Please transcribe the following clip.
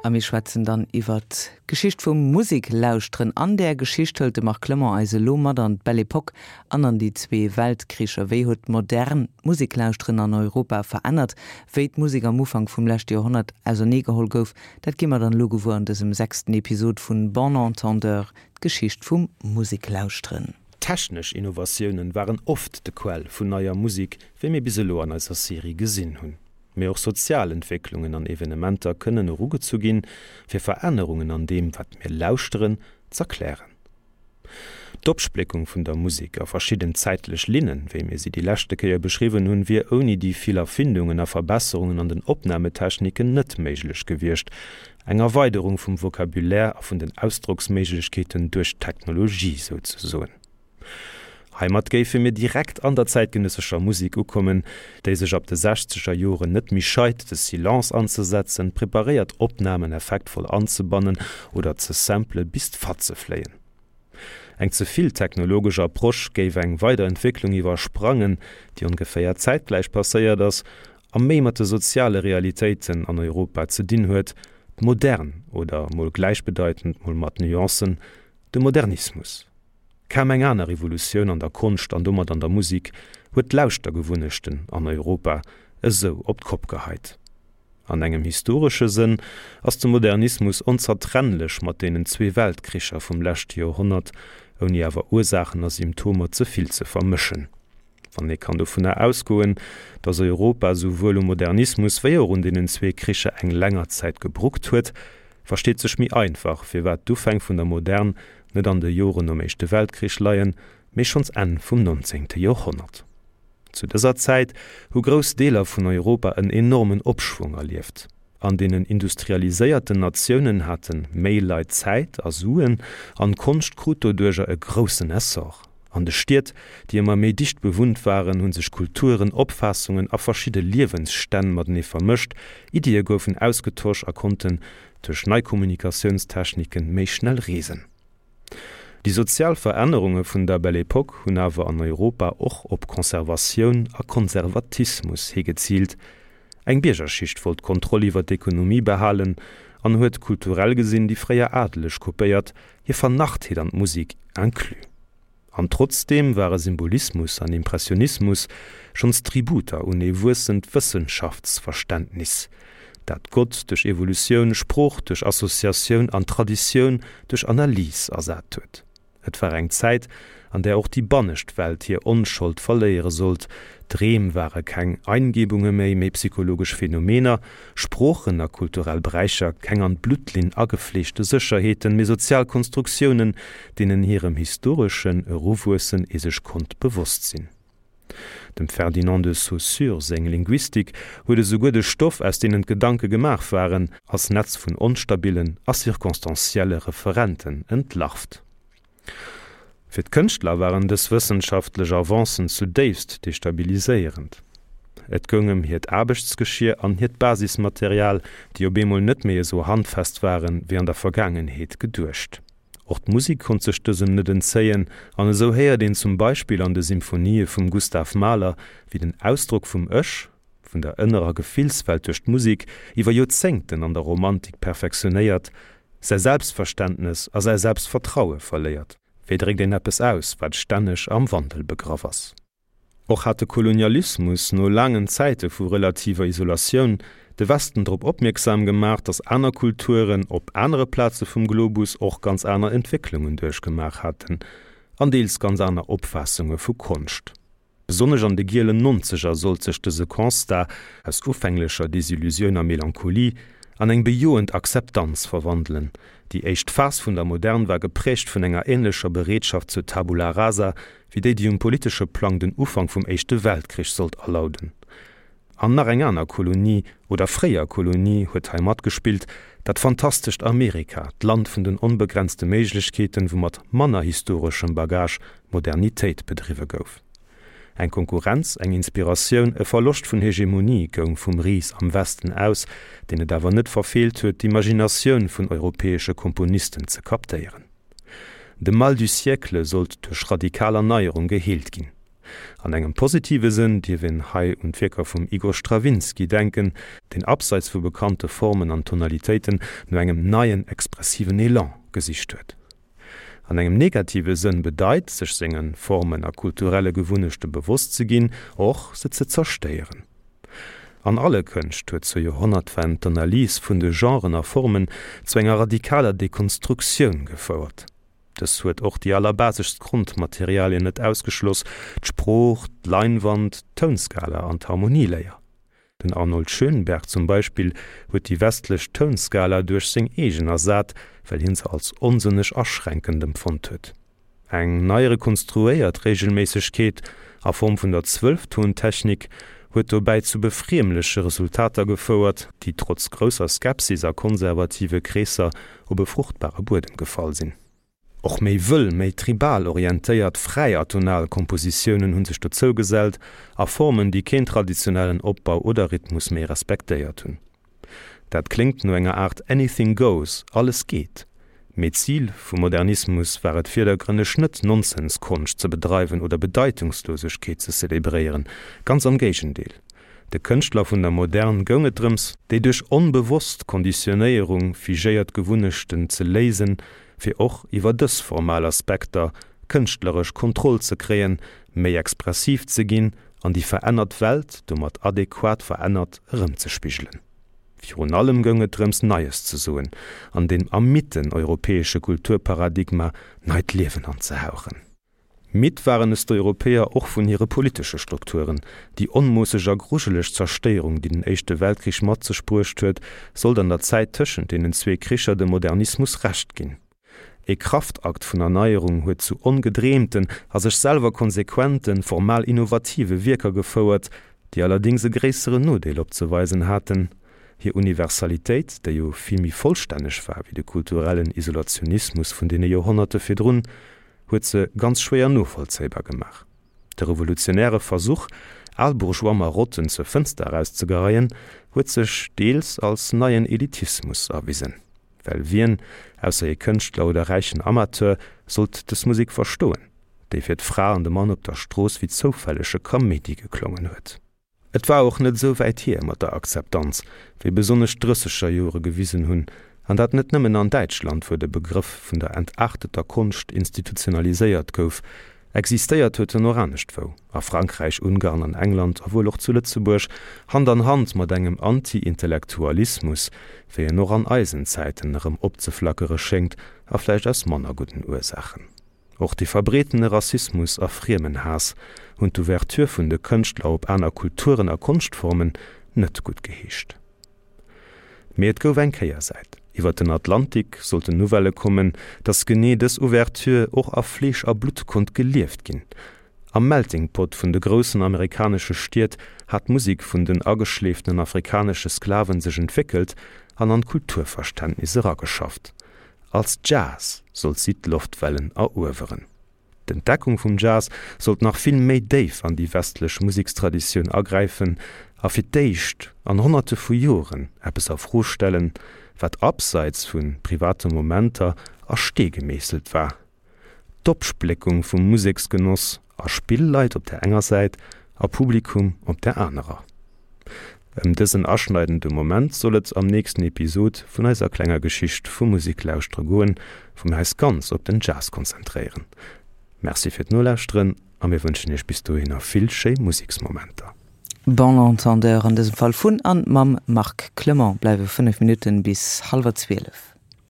A mir schwätzen dann iwwert d'Geschicht vum Museklauschteren. An där Geschicht hëlt de Marc Clement eis elo mat an d'Belle Epoque an an déi zwee Weltkricher. Wéi huet d'Modern d'Museklauschteren an Europa verännert? Wéi d'Musek am Ufank vum leschte Joerhonnert auserneegeholl gouf, dat gi mer dann elo gewuer an dësem sechsten Episod vun Bon Entendeur, d'Geschicht vum Museklauschteren. Technesch Innovatiounen waren oft de Quell vun neier Musek, wéi mir bis elo an eiser Serie gesinn hunn. Mee och sozial Entwécklungen an Evenementer kënnen erugezu ginn, fir Verännerungen an deem, wat mir lauschteren, z'erklären. D'Opspléckung vun der Musek a verschidden zäitlech Linnen, wéi mir si déi leschte Kéier beschriwwen hunn, wier ouni déi vill Erfindungen a Verbesserungen an den Opnametechniken net méiglech gewiescht, eng Erweiderung vum Vocabulaire a vun den Ausdrocksméiglechkeeten duerch d'Technologie souzesoen. Heimat géife mir direkt an der zäitgenëssescher Musek ukommen, déi sech ab de sechzeger Joren net méi scheit, de Silence anzesetzen, preparéiert Opnamen effektvoll anzebannen oder ze sample bis d'Fatze fléien. Eng ze vill technologesch Approche géif eng weider Entwécklung iwwersprangen, déi ongeféier zäitgläich passéiert ass a méi mat de soziale Realitéiten an Europa ze dinn huet, d'Modern oder, mol gläichbedeitend, mol mat Nuancen, de Modernismus. Kaum eng aner Revolutioun an der Konscht an domat an der Musik huet d'Lauschtergewunnechten an Europa esou op d'Kopp geheit. An engem historesche Sënn ass de Modernismus onzertrennlech mat deenen zwee Weltkricher vum leschte Joerhonnert, ouni awer Ursaachen a Symptomer ze vill ze vermëschen. Wann ee kann dovunner ausgoen, datt Europa souwuel um Modernismus wéi och un deenen zwee Kricher eng länger Zäit gebruckt huet, versteet sech méi einfach, firwat d'Ufäng vun der Modern net an de Joren nom Éischte Weltkrich leien, mee schonns Enn vum nonzéngte Joerhonnert. Zu dëser Zäit hu grouss Deeler vun Europa en enormen Opschwong erlieft. An deenen industrialiséierten Natiounen hate méi Leit Zäit a Suen, an d'Konscht krut doduercher e groussen Essor. An de Stied, déi ëmmer méi dicht bewunnt waren, hu sech Kulturen, Opfaassungen a verschidde Liewensstänn matenee vermëscht, Iddie goufen ausgetosch a konnten duerch nei Kommunikatiounstechniken méi schnell reesen. Déi sozial Verännerunge vun der Belle Époque hunn awer an Europa och op Conservatioun a Konservatismus higeziilt. Eng Biergerschicht wollt d'Kontroll iwwer d'Ekonomie behalen an huet kulturell gesinn déi fréier Adeleg kopéiert, hir Vernarrtheet an d'Musek inclus. An trotzdeem ware Symbolismus an Impressionismus schonns Tributer un ee wuessend Wëssenschaftsverständnis, dat Gott duerch Evolutioun, Sprooch duerch Associatioun an Traditioun duerch Analys ersat huet. Et war eng Zäit, an där och déi bannescht Welt hir Onschold verléiere sollt, Dreem ware keng Eingebunge méi, mee psychologesch Phänomener, Sproochen a kulturell Bräicher keng an d'Bluttlinn agefleegte Sécherheeten, mee sozial Konstruktiounen, deenen hirem historeschen Eruwuessen ee sech konnt bewosst sinn. Dem Ferdinand de Saussure seng Linguistik huet esouguer de Stoff, aus deenen d'Gedanke gemaach waren, als Netz vun onstabillen a circonstancielle Referenten entlarvt. Fir d'Kënschtler waren dës wëssenschaftlech Avancen zudéifst destabiliséierend. Et goung ëm hiert Aarbechtsgeschier an hiert Basismaterial, déi op eemol net méi esou handfest waren, wéi an der Vergaangenheet geduecht. Och d'Musek konnt sech dësem net entzéien, an esou héiert een zum Beispill an de Symphonië vum Gustav Mahler, wéi den Ausdrock vum Ech, vun der ënnerer Gefillswelt duerch d'Musek, iwwer Joerzéngten an der Romantik perfektionéiert, säi Selbstverständnes a säi Selbstvertraue verléiert. Wéi dréckt een eppes aus, wat stänneg am Wandel begraff ass? Och hat de Kolonialismus, no laangen Zäite vu relativer Isolatioun, de Westen drop opmierksam gemaach, datt aner Kulturen op anere Plaze vum Globus och ganz aner Entwécklungen duerchgemaach haten an deels ganz aner Opfaassunge vu Konscht. Besonnesch an de gielen Nonzeger sollt sech dëse Constat aus ufänglecher Desillusioun a Melancholie an eng bejoend Akzeptanz verwandelen. Déi éischt Phas vun der Modern war geprägt vun enger änlecher Bereetschaft zur Tabula rasa wéi déi, déi um politesche Plang den Ufank vum Éischte Weltkrich sollt alauden. An nach eng aner Kolonie, oder fréier Kolonie, huet hei matgespillt, dat fantastescht Amerika, d'Land vun den onbegrenzte Méiglechkeeten, wou mat manner historeschem Bagage Modernitéit bedriwwe gouf. Eng Konkurrenz, eng Inspiratioun, e Verloscht vun Hegemonie goung vum Ris am Westen aus, deen et awer net verfeelt huet, d'Imaginatioun vun europäesche Komponisten ze kaptéieren. De Mal du siècle sollt duerch radikal Erneierung geheelt ginn. An engem positive Sënn dierf een hei un d'Wierker vum Igor Strawinsky denken, deen abseits vu bekannte Formen an Tonalitéiten no engem neien expressiven Elan gesicht huet. An engem negative Sënn bedeit, sech senge Formen a kulturelle Gewunnechte bewosst ze ginn, och se ze zerstéieren. An alle Kënscht huet zur Joerhonnertwend d'Analys vun de Genren a Formen zu enger radikaler Dekonstruktioun gefouert. Dës huet och déi allerbaseschst Grondmaterialien net ausgeschloss, d'Sprooch, d'Leinwand, d'Tounskala an d'Harmonieléier. Den Arnold Schönberg zum Beispill huet déi westlech Tounskala duerch seng eegen ersat, well hien se als onsënneg aschränkend empfonnt huet. Eng nei rekonstruéiert Reegelméissegkeet a Form vun der Zwëlftontechnik huet dobäi zu befriemleche Resultater gefouert, déi trotz grousser Skepsis a konservative Kreesser op e fruchtbare Buedem gefall sinn. Och méi wëll, méi tribal orientéiert fräi atonal Kompositiounen hu sech dozou gesellt, a Formen, déi keen traditionellen Opbau oder Rhythmus méi respektéiert hunn. Dat kléngt no enger Aart Anything goes, alles geet. Mee d'Zil vum Modernismus war et virdergrënneg net, Nonsense-Konscht ze bedreiwen oder Bedeitungslosegkeet ze zelebréieren, ganz am Géigendeel. De Kënschtler vun der Modern goung et drëms, déi duerch onbewosst Konditionéierung figéiert Gewunnechten ze léisen, fir och iwwer dës formal Aspekter kënschtleresch Kontroll ze kréien, méi expressiv ze ginn an déi verännert Welt domat adequat verännert erëmzespigelen. Virun allem goung et drëms, Neies ze soen an dem ermidden europäesche Kulturparadigma neit Liewen anzehauchen. Midd waren es d'Europäer och vun hire politesche Strukturen. Déi onmoosseg a grujeleg Zerstéierung, déi den Éischte Weltkrich mat sech bruecht huet, sollt an der Zäit tëschent deenen zwee Kricher dem Modernismus Recht ginn. E Kraftakt vun Erneierung huet zu ongedreemten a sech selwer konsequenten, formal innovative Wierker gefouert, déi allerdéngs e gréisseren Nodeel opzeweisen haten, Hir Universalitéit, déi jo vill méi vollstänneg war wéi de kulturellen Isolationismus vun deene Joerhonnerte virdrun, huet se ganz schwéier novollzéibar gemaach. De revolutionäre Versuch, al bourgeois Marotten zur Fënster erauszegeheien, huet sech deels als neien Elitismus erwisen. Well wien, ausser ee Kënschtler oder räichen Amateur, sollt dës Musek verstoen, déi fir d'Fra an de Mann op der Strooss wéi zoufällege Kaméidi geklongen huet? Et war och net esou wäit hier mat der Akzeptanz, wéi besonnesch d'Drësseger Jore gewisen hunn, an dat net nëmmen an Däitschland, wou de Begrëff vun der entarteter Konscht institutionaliséiert gouf. Existéiert huet en och aneschtwou, a Frankräich, Ungarn an England a wuel och zu Lëtzebuerg, Hand an Hand mat engem Anti-Intellektualismus, wéi en och an eisen Zäiten erëm opzeflackere schéngt, a vläicht aus manner gudden Ursaachen. Och de verbreetene Rassismus a Friemenhaass hunn d'Ouverture vun de Kënschtler op aner Kulturen a Konschtformen net gutt geheescht. Mee et gouf eng Kéiersäit, Iwwer den Atlantik sollten Nouvellë kommen, datt genee dës Ouverture och a Fleesch a Blutt konnt gelieft ginn. Am Melting Pot vun de groussen amerikanesche Stied hat d'Musek vun den ageschleeftenen afrikanesche Sklaven sech entwéckelt an an d'Kulturverständnis erageschafft. Als Jazz sollt si d'Loftwellen erueweren. D'Entdeckung vum Jazz sollt nach vill méi déif an déi westlech Musekstraditioun agräifen a fir d'éischt an Honnerte vu Joren eppes a Fro stellen, wat abseits vu private Momenter a Stee gemeesselt war, D'Opspléckung vum Museksgenoss a Spillleit op der enger Säit a Publikum op der anerer. Ëm dësen aschneidende Moment soll et am nächsten Episod vun eiser klenger Geschicht vum Museklauschtere goen, wou mir eis ganz op den Jazz konzentréieren. Merci fir d'Nolauschteren a mir wënschen iech bis dohinner vill schéi Museksmomenter. Bon entendeur an dësem Fall vun an mam Marc Clement. Bleiwe 5 Minutten bis hallwer 12.